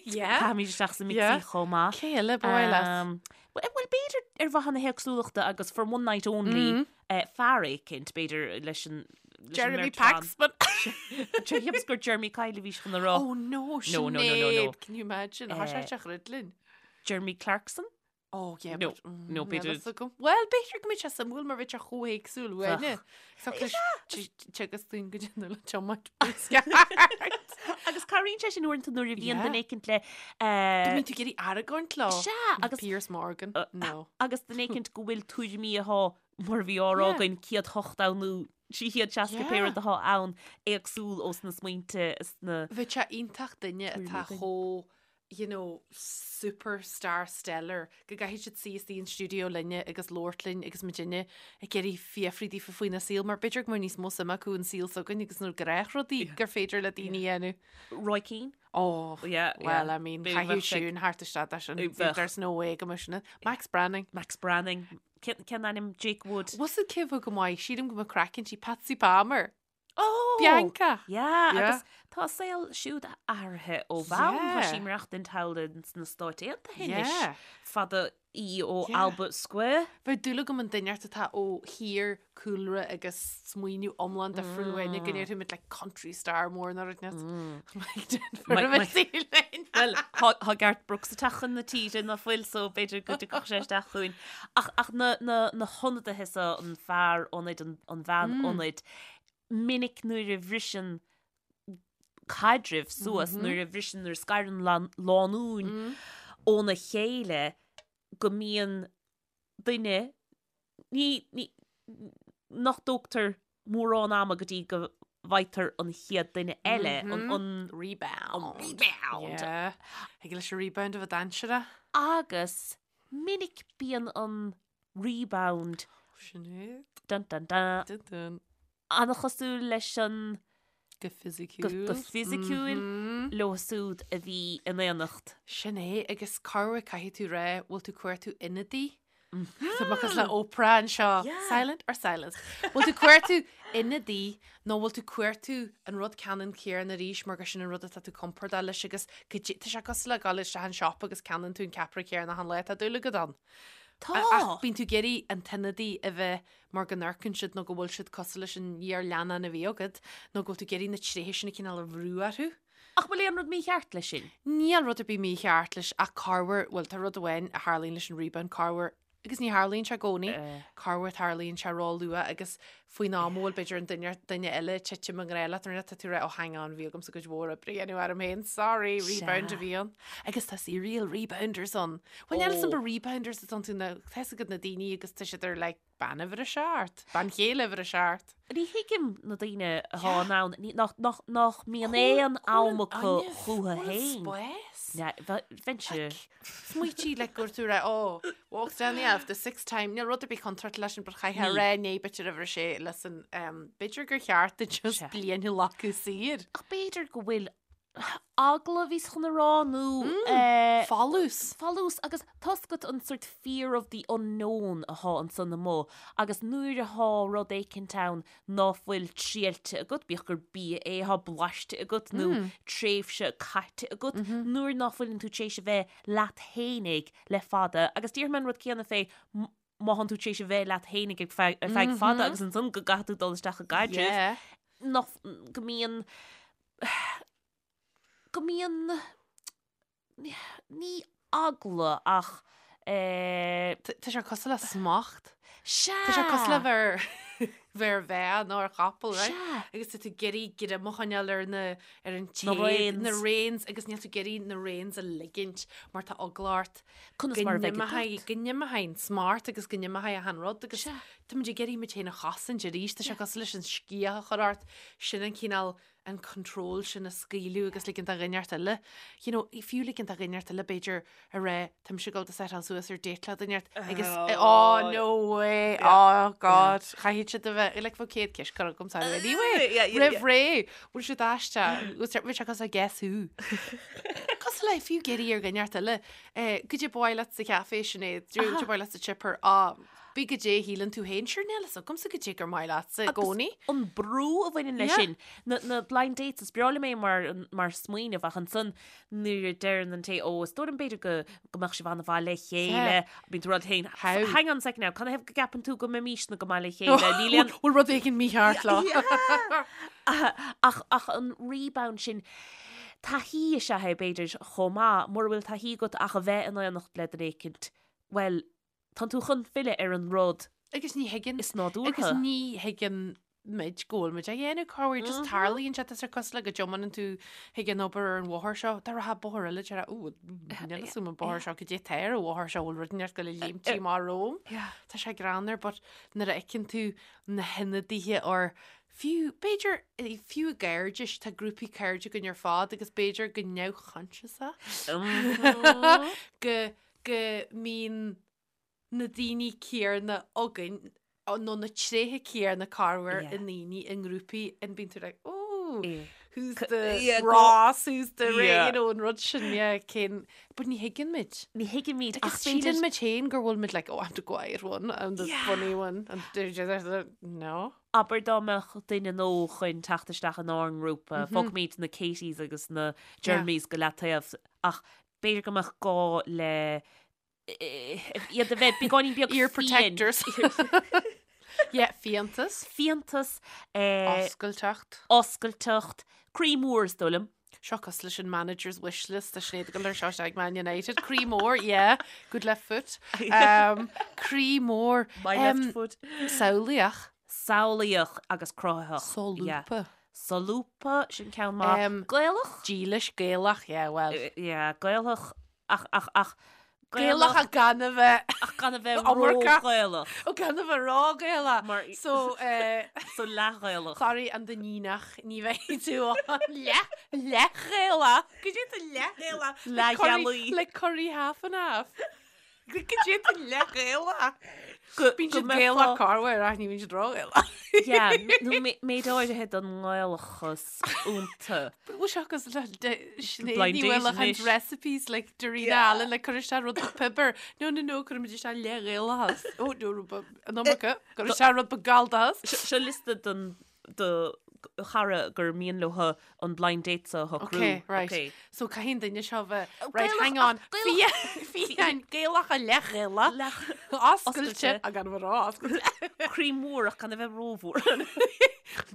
Yeah. Caithfimid isteach sa mixie Yeah. chomh maith. Cé eile ba mhaith leat? Um, Well, well, b'fhéidir ar mhaithe na héagsúlachta agus for one night only, eh, fear éicint, b'fhéidir leis an leis an Jeremy mbeirt bhan. Paxman. Cheapas gur Jeremy Kyle a bhís chun a rá. Oh no, No, no, no, no, no. Sinéad, Can you imagine? Tá sé Eh, te chruidlinn. Jeremy Clarkson? Oh yeah, No, but, mm, no, níl b'fhéidir- fhios agam. Well, b'fhéidir go mbeidh sé suimiúil mar bheadh sé chomh héagsúil uainne. So teagas dúinn go déanamh le tiomáint Agus cabhraíonn sé sin uaireanta nuair a bhíonn Yeah. duine éicint le eh, Bíonn tú ag iarraidh argóint leo. Sea, agus Piers Morgan. Uh, No. agus duine éicint go bhfuil tuairimí atá. mar a bhí á rá againn, 108 ann nó 360 pé rud atá ann, éagsúil ós na smaointe is na. Bheadh sé iontach duine atá chomh you know, superstar stellar go gcaithfidh siad suí istigh in stiúideo linne agus labhairt linn agus muidinne ag iarraidh fiafraí díofa faoina saol mar b'fhéidir go mbeadh níos mó suime acu an saol s'againn agus na gnáthrudaí gur féidir le daoine a dhéanamh. Roy Keane? Oh, yeah, well, I mean, caithfidh Siún thart isteach leis sin. There's no way go mbeadh sin. Max Branning. Max Branning. Cén ainm Jake Wood? Was it cé bheadh go maith? Sílim go mbeadh craic inti Patsy Palmer. Oh! Bianca! Yeah, agus tá a saol siúd athraithe ó bhonn. Tá sí ag maireachtaint thall sna Stáit Aontaithe anois. Fada í ó Albert Square. Bheadh dúil agam i nduine inteacht atá ó thír, cúlra agus smaoineamh iomlán difriúil uainne, go ndéarfaidh muid like country star mór nó rud inteacht. Well, tá Garth Brooks ag teacht chun na tíre ná fuil so b'fhéidir go dtiocfadh sé isteach chugainn. Ach, ach na, na, na hionadaithe so, an fear ionaid, an, an bhean ionaid, minic nuair a bhriseann caidrimh suas, nuair a bhriseann, nuair a scarann lánúin óna chéile, go mbíonn duine, ní, ní, nach dtógtar mórán ama go dtí go bhfaightear an chéad duine eile, an, an Rebound. An rebound. Yeah. Thig leis an rebound a bheith dainséarach. Agus minic bíonn an rebound Sin é. dun dun dun Dun dun. an-chosúil leis an Go fisiciúil. go fisiciúil leo siúd a bhí in aonacht. Sin é, agus corruair caithfidh tú rá, bhfuil tú cuartú ionadaí? Tá mé cosúil le Oprah anseo. Silent or silence? Bhfuil tú cuartú ionadaí nó bhfuil tú cuartú an rud ceannann céanna arís mar gur sin an rud atá tú compordach leis agus go dté- tá sé cosúil le dul isteach an shop agus ceannaíonn tú an ceapaire céanna achan lá tá dúil agat ann. Tá! Ach bíonn tú ag iarraidh an t-ionadaí a bheith mar go n-amharcann siad nó go bhfuil siad cosúil leis an iar-leannán a bhí agat nó go bhfuil tú ag iarraidh na tréithe sin a cineál a bhrú orthu. Ach bhfuil aon rud mícheart leis sin? Níl rud ar bith mícheart leis ach corruair, bhuel tá rud amháin a tharlaíonn leis an rebound, corruair, agus ní tharlaíonn sé i gcónaí, corruair tarlaíonn sé ró-luath agus faoin am a bhfuil b'fhéidir an duine, duine eile ag titim i ngrá leat nó tá tú ag rá oh hang on bhí agamsa cuid mhór oibre a dhéanamh orm féin, sorry, rebound a bhí ann. Agus tá serial rebounders ann. Bhuel níl 'fhios a'm ba rebounders atá iontu nó tá 'fhios agat na daoine agus tá siad ar like bean uimhir a seacht, bean chéile uimhir a seacht. Ní thuigim na daoine atá in ann, nach, nach mbíonn aon am acu chúthu féin. Spás. Bheinnse. Smaoitigh like gur tú rá, oh, walks down the aisle for the sixth time, níl rud ar bith contráilte leis sin, but chaithfeá a rá né b'fhéidir uimhir a sé listen, um, b'fhéidir gur cheart duit just bliain a ghlacadh saor. Ach b'fhéidir go bhfuil eagla a bhíos chun a rá nó eh, Folús. folús agus tá 'fhios agat an sort fear of the unknown athá ansan amuigh agus nuair athá rud éicint ann ná fuil triailte agat, bíodh gur bia é athá blaiste agat nó tréimhse caite agat, nuair ná fuileann tú tar éis a bheith leat fhéinig le fada agus déarfaidh mé an rud céanna fé má thánn tú tar éis a bheith leat fhéinig ar feadh ar feadh fada agus ansan go gcaithfidh tú dul isteach i gcaidreamh nach go mbíonn go mbíonn ní eagla ach eh. Tá sé cosúil le smacht. Sea! Tá sé cosúil le bheith bheith ar bhean nó ar chapall, right? Sea! Agus tá tú ag iarraidh greim a choinneáil ar na ar an Na téad, reins. na reins agus níl tú ag iarraidh na reins a ligint mar tá eagla ort Conas go mar a bheidh n-imeoidh go n-imeoidh an smacht agus go n-imeoidh achan rud agus Sea. tá muid ag iarraidh muid féin a chosaint arís. Tá sé cosúil leis an sciath a chur ort, sin an cineál an control sin a scaoileadh agus ligint do dhuine inteacht eile, you know, fiú ligint do dhuine inteacht eile b'fhéidir a rá tá mise ag dul do setáil suas ar date le duine inteacht agus oh no way, oh god, chaithfidh siad a bheith, like bheadh 100 ceist curtha agam sorry anyway, roimh ré, bhfuil siad aisteach, bhfuil sé cosúil le guess who. Cosúil le fiú ag iarraidh ar dhuine inteacht eile, eh, goidé ba mhaith leat sa chaifé Sinéad, goidé ba mhaith leat sa chipper, ah, Bí goidé a shíleann tú féin, sure níl fhios agamsa goidé gur maith leatsa i gcónaí. An brú a bhaineann leis sin, na, na blind dates, is breá liom é mar, mar smaoineamh ach ansan nuair a deireann an té, ó, is dóigh liom b'fhéidir go, go mbeadh sibh an-mhaith le chéile, bíonn tú ag rá leat féin, How? hang on a second now, canathaobh go gceapann tú go mbeimisne go maith le chéile? Níl aon, Bhfuil rud éigin mícheart leo? Ach, ach an rebound sin, taithí is ea é b'fhéidir chomh maith, mura bhfuil taithí agat ach a bheith in aonacht le duine éicint, bhuel, Tánn tú chun filleadh ar an rud Agus ní thuigeann is nádúrtha. Agus ní thuigeann. muid go bhfuil muid á dhéanamh corruair just tarlaíonn sé tá sé cosúil le go dtiomáineann tú chuig an obair ar an bhóthar seo tá rogha bóthar eile deir ó níl a fhios agam an bóthar seo goidé atá ar an bhóthar seo bhfuil rud inteacht ag goil a léimt amach romham tá sé greannmhar but nuair a fheiceann tú na hionadaithe or fiú b'fhéidir fiú i gcairdis tá grúpaí cairde againn ar fad agus b'fhéidir go neamhchoinsiasach go go mbíonn na daoine céarna againn nó na tréithe céarna corruair i ndaoine i ngrúpaí and bíonn tú like oh who's the Ross who's the Ray you know an rud sin yeah cén but ní thuigeann muid. Ní thuigeann muid ach síleann muid féin gur bhfuil muid like oh I'm the quiet one I'm the funny one and no. Abair dá mbeadh duine nua chun teacht isteach inár ngrúpa, fágfaimid na Katies agus na Jeremys go leataobh ach b'fhéidir go mbeadh gá le iad a bheith beagáinín beag Ear protectors. Yeah, fiántas. Fiántas. Oscailteacht. Oscailteacht. Croí mór is dóigh liom. Seo cosúil leis an manager's wish list a Sinéad ag dul ar seo ag Man United. Croí mór, yeah. Good left foot. Um, croí mór. My left foot. Samhlaíoch. Samhlaíoch agus cruthaitheach. Solúbtha. Solúbtha, sin ceann maith. Gaelach? Dílis, Gaelach, yeah, well. Yeah, Gaelach Ach, ach, ach, Gaelach ach gan a bheith. Ach gan a bheith ró-Ghaelach. Ó gan a bheith ró-Ghaelach. Mar. So, eh. So leath-Ghaelach. Sorry, an Duinníneach, ní bheidh tú ann. Leath, leath-Ghaelach. Goidé tú leath-Ghaelach. Leath-ghealaí. Like curry half and half. Goidé tú leath-Ghaelach. Bíonn siad Gaelach corruair ach ní bhíonn siad ró-Ghaelach. Yeah, nó méid áirithe den nGaelachas iontu. Bhfuil sé cosúil le Sinéad Ní Mhaoileacháin's recipes like Darina Allen le cur isteach rud beag piobar. No, no, no, cuirimid isteach leath-Ghaelachas. Ó, no, rud beag, an iomarca, cuir isteach rud beag Galldachas. Seo liosta don do chara gur mian leo an blind date seo a shocrú. Ok, right. Okay. So caithfidh an duine seo bheith, right, hang on, fiáin, Gaelach ach leath-Ghaelach, oscailte, ach gan a bheith ró-oscailte. Croí mór ach gan a bheith rómhór.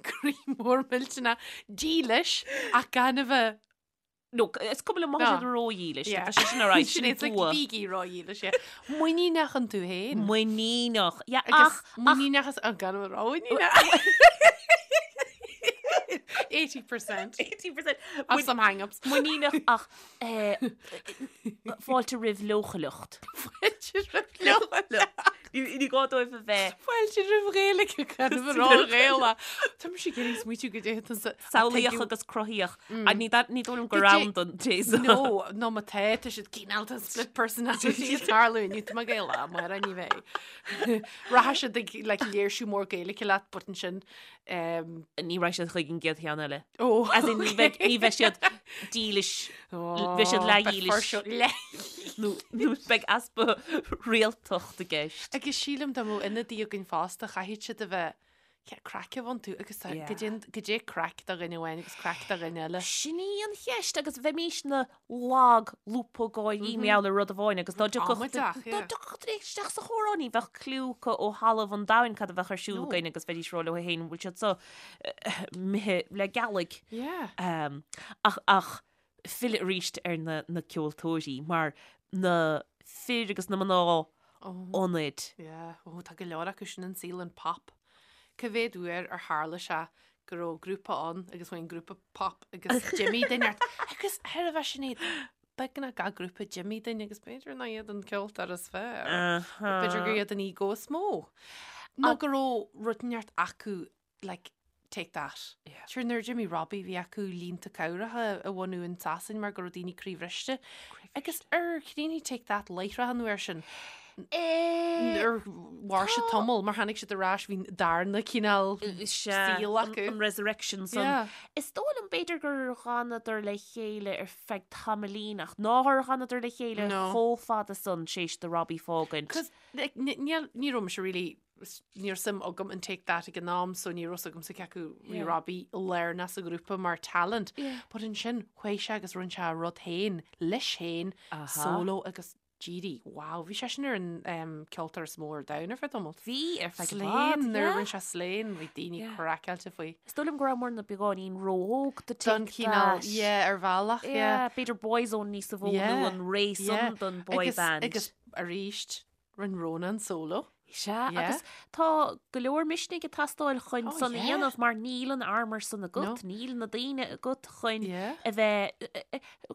Croí mór millteanach, dílis ach gan a bheith No, is cuma liom má tá siad ródhílis. Tá sé sin ar aghaidh, sin It's like bua. bígí ródhílis, yeah. Muiníneach iontu féin. Muiníneach. Yeah, Agus ach, ach, muiníneach is an gan a bheith rómhuiníneach. 80%. 80%. Of some hang-ups. Muiníneach ach eh, fáilte roimh leochaileacht. Fáilte roimh leochaileacht. Ní gá dóibh a bheith. Fáilte roimh Ghaeilge gan a bheith ró-Ghaelach. Tá mise ag iarraidh smaoitiú goidé tusa. Samhlaíoch agus cruthaíoch. Ní dóigh liom gur ann don té seo. No, nó má tá, tá siad cineál tá split personality ag tarlú inniu tá mé Gaelach, amárach ní bheidh. Rachaidh siad ag like léirsiú mór Gaeilge leat but ansin Ní rachaidh siad chuig an gcéad cheann eile. Ó, As in, ní bheidh, ní bheidh siad dílis, bheidh siad leathdhílis. Nó, nó beidh easpa rialtacht i gceist. Agus sílim dá mbeadh ionadaí againn fosta, chaithfeadh siad a bheith yeah, craic a bheith iontu agus tá, Yeah. goidé, goidé craic do dhuine amháin agus craic do dhuine eile. Sin í an cheist agus bheimís ina lag lúbtha gáirí mar gheall ar rud amháin agus dá dtiocfadh Amaideach, dá yeah. dtiocfadh duine isteach sa chomhrá ní bheadh cliú acu ó thalamh an domhain cad a bheadh ar siúl No. againn agus bheidís ag rá leo féin bhfuil siad seo imithe le gealaigh. Yeah. Um, ach, ach filleadh arís ar na, na ceoltóirí mar na fir agus na mná Oh. ionaid. Yeah. Oh, tá go leor acu sin an saol an pop. Cá mhéad uair ar tharla sé go raibh grúpa ann agus bhain grúpa pop agus d'imigh duine ort. Agus ar a bheith sin iad, beagnach gach grúpa d'imigh duine agus b'fhéidir nach iad an ceoltóir is fearr. B'fhéidir gur iad an ego is mó. Nó go raibh rud inteacht acu like, take that. Yeah. Sure, nuair a d'imigh Robbie bhí acu línte cabhracha a bhunú in Sasain mar go raibh daoine croíbhriste. Agus ar chríochnaigh Take That láithreach an uair sin. Ar mhair siad tamall mar tháinig siad ar ais bhí darna cineál saol acu. An resurrection san. Yeah. Is dóigh liom b'fhéidir gur dh'fhanadar le chéile ar feadh tamaillín ach nár dh'fhanadar le chéile No. chomh fada san tar éis do Robbie fágaint. Cos like, ní ní raibh mise really ní raibh suim agam in Take That ag an am so ní raibh 's agamsa cé acu bhí Yeah. Robbie lárnach sa ghrúpa mar talent. Yeah. But ansin chuaigh sé agus rinne sé a rud féin leis féin Aha. solo agus d'éirigh, wow, bhí sé sin ar an um, ceoltóir is mó ar domhan ar feadh tamaill. Bhí ar feadh i Slain, bhfad, nuair a yeah. rinne sé Slain, bhí daoine Yeah. craiceáilte faoi. Is dóigh liom go rabhamar beagáinín ró-óg do Don Take cineál, That. yeah, ar bhealach, yeah. Yeah, b'fhéidir Boyzone níos mó Yeah, nó an ré yeah. san don boy Agus, band. agus arís, rinne Ronan solo. Sea, agus tá go leor misnigh ag teastáil chun oh, san a dhéanamh mar níl an armor san agat, níl na daoine agat chun a bheith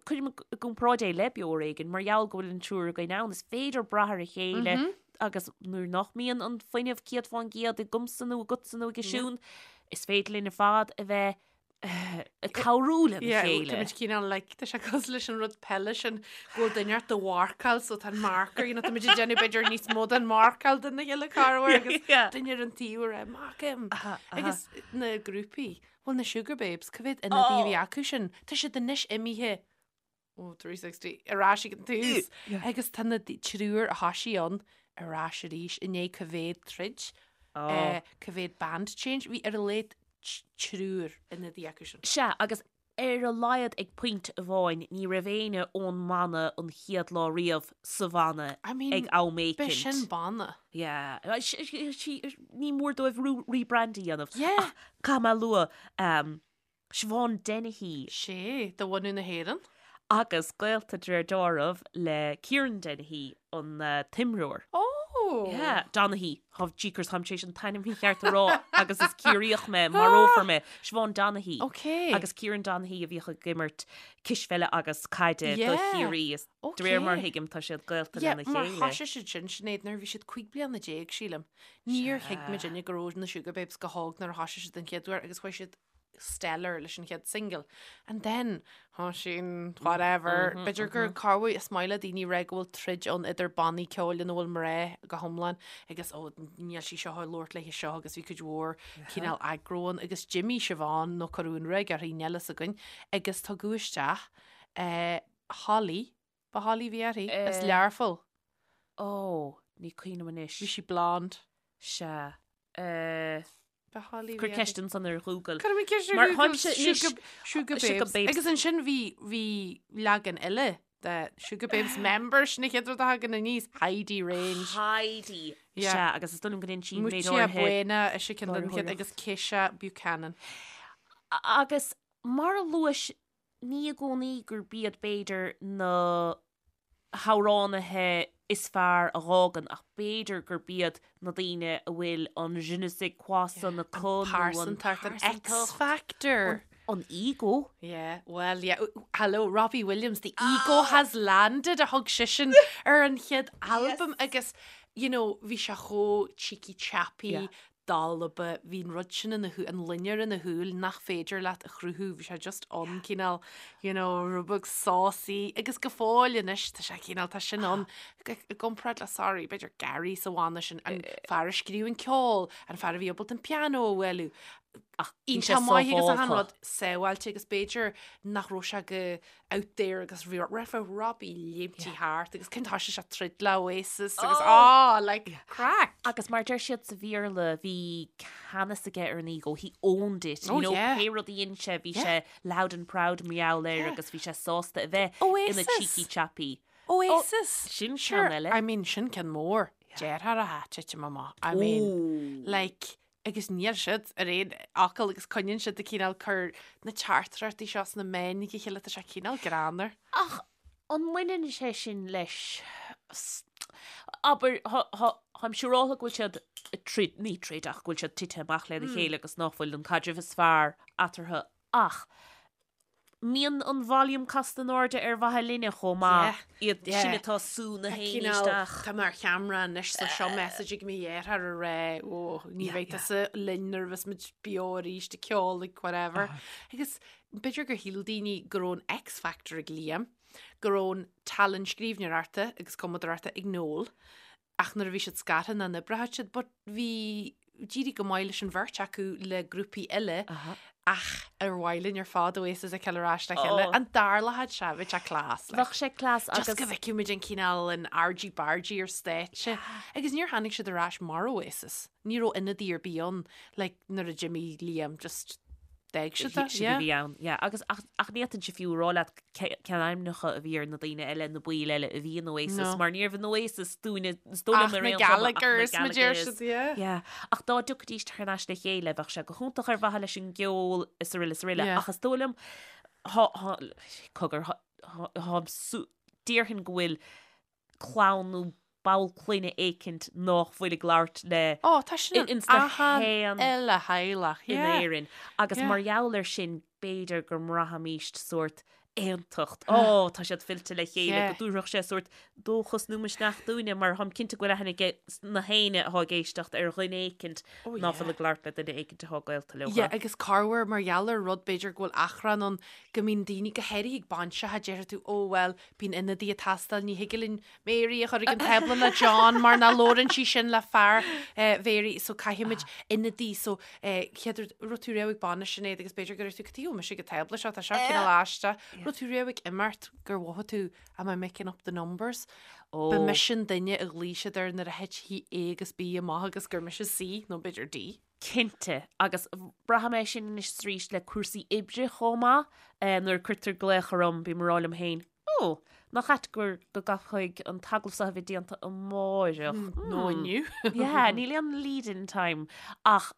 cuirim i gcomparáid é le Beo Ar Éigean mar gheall go bhfuil an triúr againn ann, is féidir brath ar a chéile mm-hmm. agus nuair nach mbíonn an fuinneamh 100% agamsa nó agatsa nó ag Siún, is féidir linn ar fad a bheith ag cabhrú lena chéile. Tá muid cineál like, tá sé cosúil leis an rud peile sin go bhfuil duine ort do mharcáil so tá an marker, you know, tá muid ag déanamh b'fhéidir níos mó den marcáil den na chéile corruair agus duine ar an taobh ag rá mark him. Agus na grúpaí, bhuel na Sugababes, cá mhéad ionadaí a bhí acu sin? Tá siad anois imithe ó 360 ar ais ag an tús. Agus tá na triúr a thoisigh ann ar ais arís i ndiaidh cá mhéad troid, cá mhéad band change, bhí ar a laghad triúr ionadaí acu sin. Sea, agus ar a laghad ag pointe amháin ní raibh éinne ón mbanna an chéad lá riamh sa bhanna ag am éicint. B'shin banna. Yeah. Ní mór dóibh rebrand a dhéanamh. Yeah. Ach caithfidh mé a lua, Siobhán Dennehy. Sea, de bhunadh na hÉireann. Agus gaolta de réir dealraimh le Kieran Dennehy, an t-imreoir. Ó! Yeah, Donaghy. Tá, jeekers, táim tar éis an t-ainm mícheart a rá agus is Ciarraíoch mé, marófar mé. Siobhán Donaghy. Ok. Agus Kieran Donaghy a bhíodh ag imirt cispheile agus caide do Chiarraí. Is de réir mar a thuigim tá siad gaolta lena chéile. Yeah, mar thoisigh siad sin, Sinéad, nuair a bhí siad 15 bliana, sílim. Níor thuig muidinne go raibh na Sugababes go hóg nuair a thoisigh siad an chéad uair agus chuaigh siad stellar leis an chéad single. And then, tá sin, whatever, b'fhéidir gur corruair is maith le daoine rá go bhfuil troid ann idir bannaí ceoil ina bhfuil mná go hiomlán agus ó níl sí seo ag labhairt léi seo agus bhí cuid mhór cineál aggro ann agus d'imigh Siobhán nó cuireadh an ruaig uirthi níl a fhios againn agus tugadh isteach eh, Holly, ba Holly a bhí uirthi, as Learpholl. Ó, ní cuimhin liom anois. Bhí sí blonde. Sea. Eh, Cuir ceist ansan ar Google. Cuir mé ceist ar Google. Sugar Babes. Agus ansin bhí bhí leagan eile de Sugababes members na chéad rud a thagann aníos Heidi Range. Heidi. Sea, agus is dóigh liom go ndein sí méid áirithe. Mutya Buena is ea ceann den chéad agus Keisha Buchanan. Agus mar a luais ní i gcónaí gurb iad b'fhéidir na hamhránaithe is fearr a dh'fhágann ach b'fhéidir gurb iad na daoine a bhfuil an je ne sais quoi san acu nó an pearsantacht, an X-factor. An ego. Yeah, well yeah, hello, Robbie Williams, the ego has landed a thug seisean ar an chéad albam agus you know, bhí sé chomh cheeky chappy, dalba, bhí an rud sin ina shúil, an loinnir ina shúil nach féidir leat a chruthú, bhí sé just ann cineál, you know, rud beag saucy agus go fóill anois tá sé cineál, tá sin ann i gcomparáid le, sorry, b'fhéidir Gary sa bhanna sin, an fear a scríobh an ceol, an fear a bhí ábalta an pianó a bhualadh, Ach bhí sé iontach maith agus achan sábhálta. rud sábháilte agus b'fhéidir nach raibh sé go out there agus bhí raibh Robbie léimtí thart agus cén thoisigh sé troid le Oasis agus ah like craic. Agus mar deir siad sa Bhéarla bhí ceannas aige ar an ego, he owned it, Oh you know, yeah. pé rud a dhein sé bhí Yeah. sé loud and proud mar gheall air Yeah. agus bhí sé sásta a bheith ina Oasis. cheeky chappy. Oasis. Sin Sure, ceann eile. I mean sin ceann mór. Deartháir atá titim amach. I mean like agus níl siad ar aon fhocal agus coinníonn siad ag cineál cur na teachtaireachtaí seo sna meáin ag a chéile, tá sé cineál greannmhar. Ach an mbaineann sé sin leis, abair, táim siúráltha go bhfuil siad ag troid, ní troid ach go bhfuil siad tite amach lena chéile agus nach bhfuil an caidreamh is fearr eatarthu ach mbíonn an volume casta in airde ar mhaithe linne chomh maith, iad sin atá ag sú na héinne isteach. Tá mé ar cheamara anois so seo message ag mo dheartháir ag rá ó ní bheidh tusa linn nuair a bheas muid beo arís ag ceol ag whatever. Agus b'fhéidir gur shíl daoine go raibh an X Factor ag Liam, go raibh an tallann scríbhneoireachta agus cumadóireachta ag Noel, ach nuair a bhí siad scartha nach n-oibreodh siad but bhí d'éirigh go maith leis an bheirt acu le grúpaí eile ach ar mhaith linn ar fad Oasis a fheiceáil ar ais le chéile an dtarlódh sé bheadh sé class like. Bheadh sé class agus Just go bhfeicfeadh muid an cineál an argy bargy ar stáitse agus níor tháinig siad ar ais mar Oasis ní raibh ionadaí ar bith ann like nuair a d'imigh Liam just D'fhág siad é, yeah. Bhí ann, yeah. Agus ach ach ní fhéadfainnse fiú a rá leat cén ainmneacha a bhí ar na daoine eile, na baill eile a bhí in Oasis, No. mar ní raibh in Oasis dúinne, is dóigh liom Ach ar na aon chuma, ach na Gallaghers, mar deir Gallaghers. siad, yeah. Yeah. Ach dá dtiocfaidís thar n-ais le chéile, bheadh sé go hiontach ar mhaithe leis an gceol is araile is araile. Yeah. Ach is dóigh liom, thá, thá, cogar, thá, thá, thá, déarfainn go bhfuil clann nó. ball clainne éicint nách bhfuil ag labhairt le Ó, tá sin in ins na achan uile theaghlach, in yeah. Éirinn. Agus Yeah. mar gheall air sin, b'fhéidir go mbraithimíst sórt aontacht. Ó, tá siad fillte le chéile, Yeah. go dtabharfadh sé sórt dóchas nó misneach dúinne, mar táim cinnte go bhfuil aithne ag na héinne atá ag éisteacht ar dhuine éicint Oh, ná yeah. fuil ag labhairt le duine éicint atá gaolta leo. Yeah, agus corruair mar gheall ar rud b'fhéidir go bhfuil achrann ann go mbíonn daoine go háirithe ag bainiseacha déarfaidh tú ó bhuel bíonn ionadaí ag teastáil ní thig linn Mary a chur ag an tábla le John mar ná labhrann sí sin le fear Mhary so caithfimid ionadaí so chéad rud raibh tú riamh ag bainis Sinéad agus b'fhéidir go raibh tú cad chuige a bhfuil mise ag an tábla seo tá seo cineál aisteach raibh tú riamh ag imeacht gur mhothaigh tú am I making up the numbers? Ba mise an duine a ghlaoigh siad air nuair a thit A agus B amach agus gur mise C nó b'fhéidir D. Cinnte, agus braithim é sin anois is arís le cúrsaí oibre chomh maith, nuair a cuirtear glaoch orm bím ag rá liom féin, Ó, nach ait gur go gcaithfidh an t-agallamh seo a bheith déanta amáireach. Nó inniu. Yeah, níl aon lead-in time ach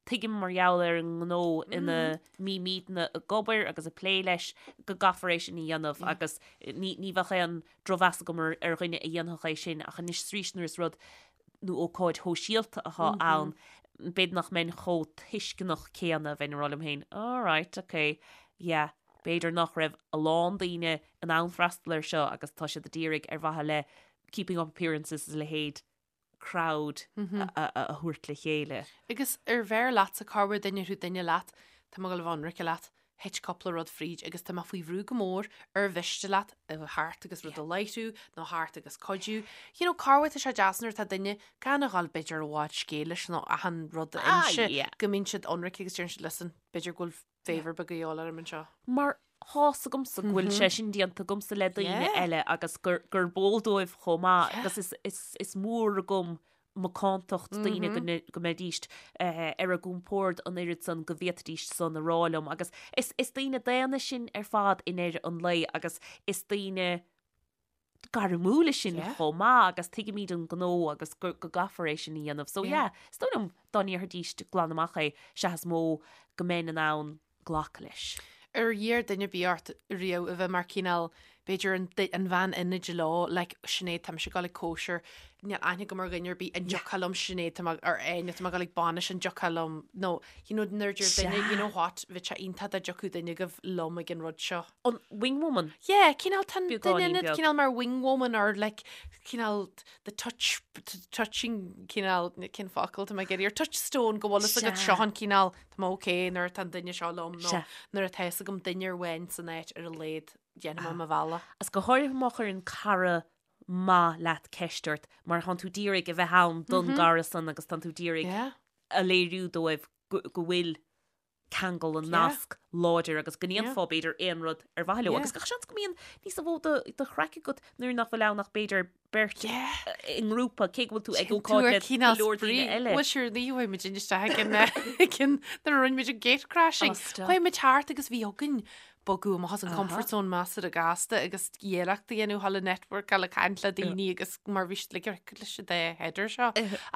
tuigim mar gheall ar an ngnó ina mbímidne ag obair agus ag plé leis go gcaithfear é sin a dhéanamh agus ní ní bheadh aon drochmheas agam ar ar dhuine a dhéanfadh é sin ach anois is arís nuair is rud nó ócáid shóisialta atá ann b'fhéidir nach mbeinn chomh tuisceanach céanna bheinn ag rá liom féin alright, okay, yeah. B'fhéidir nach raibh a lán daoine in ann freastal air seo agus tá siad a d'iarraidh ar mhaithe le keeping up appearances is a leithéid crowd a thabhairt le chéile. Agus ar bheir leatsa, corruair dá ndéarfadh duine leat, tá mé ag dul a bheith ionraice leat, thit cúpla rud fríd agus tá mé faoi bhrú go mór, ar mhiste leat a bheith thart agus rud a láithriú nó thart agus cuidiú. You know, corruair tá sé deas nuair atá duine gan a dhul b'fhéidir i bhfad scéil leis nó achan rud a inse go mbíonn siad ionraice agus deireann siad listen, b'fhéidir go bhfuil favour beag a dhíobháil orm anseo. Mar tá's agamsa go bhfuil sé sin déanta agamsa le daoine eile agus gur gurb eol dóibh chomh maith agus is is is mór agam macántacht daoine go go mbeidíst ar a gcompord an oiread san go bhféadfaidís san a rá liom agus is is daoine daonna sinn ar fad i ndeireadh an lae agus is daoine gairmiúla sinn chomh maith agus tuigimid an gnó agus go gcaithfear é sin a dhéanamh. So yeah, is dóigh liom dá ndéarfaidís glan amach é, sea is mó go mbeinn in ann glacadh leis. Ar iarr duine ar bith ort riamh a bheith mar cineál, b'fhéidir an an bhean ionaid leo, like Sinéad tá mise ag dul ag cóisir, níl aithne agam ar dhuine ar bith, an dtiocfá liom Sinéad tá mé ar Áine tá mé ag dul ag bainis an dtiocfá liom nó you know nuair a deir duine you know what bheadh sé iontach dá dtiocfadh duine agaibh liom ag an rud seo. An wingwoman? Yeah, cineál tá an duine ionad cineál mar wingwoman or like cineál the touch touching cineál cén focal tá mé ag iarraidh or touchstone go bhfuil fhios agat seo an cineál tá mé okay nuair atá an duine seo liom nó nuair atá fhios agam duine amháin san áit ar a laghad déanfaidh mé mo bhealach. Is go háirithe má chuireann cara maith leat ceist ort mar tánn tú d'iarraidh a bheith ann don gcara san agus tánn tú d'iarraidh a léiriú dóibh go bhfuil ceangal an nasc láidir agus go ndéanfá b'fhéidir aon rud ar mhaithe leo agus gach seans go mbíonn níos mó de chraic agat nuair nach bhfuil ann ach b'fhéidir beirt i ngrúpa cé go bhfuil tú ag ócáid le go leor daoine eile. Bhuel sure ní chuaigh muid isteach ag an ag an nuair a rinne muid an gate crashing. Chuaigh muid thart agus bhí againn bogadh amach as an comfort zone measartha gasta agus iarracht a dhéanamh thall networkáil ag caint le daoine agus mar bhí siad like leis an dá header seo.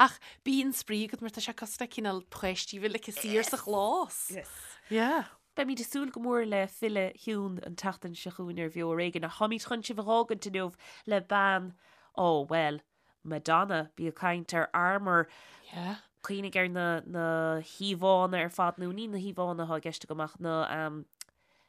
Ach bíonn spraoi agat mar tá sé cosúil le cineál páistí bhfuil like saor sa chlós. Yes. Yeah. Beimid ag súil go mór le filleadh Shiún an tseachtain seo chugainn ar Bheo Ar Éigean ach táimid chun sibh a dh'fhágaint inniu le bean, ó bhuel, Madonna, bí ag caint ar armour, Yeah. cuimhnigh ar na, na híomhánna ar fad, nó ní na híomhánna atá i gceist agam ach na, um,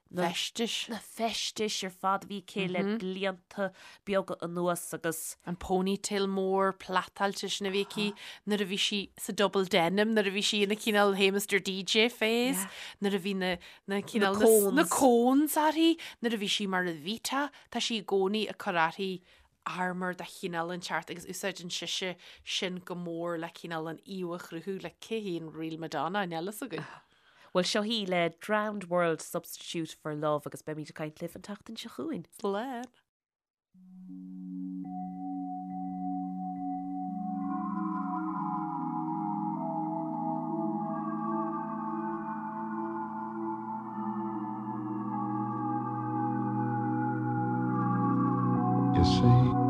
na Feistis. na feistis ar fad a bhí aici le blianta beaga anuas agus. An ponytail mór plaitáilte sin a bhí aici nuair a bhí sí sa double denim, nuair a bhí sí ina cineál Hey Mr DJ phase, nuair a bhí na, na cineál, Na cones. na cones uirthi, nuair a bhí sí mar Evita, tá sí i gcónaí ag cur uirthi armour de chineál inteacht agus úsáideann sise sin go mór le cineál an íomha a chruthú le cé hí an real Madonna, níl fhios againn. Bhuel, seo í le Drowned World Substitute for Love agus beimid ag caint libh an tseachtain seo chugainn. Slán. You see.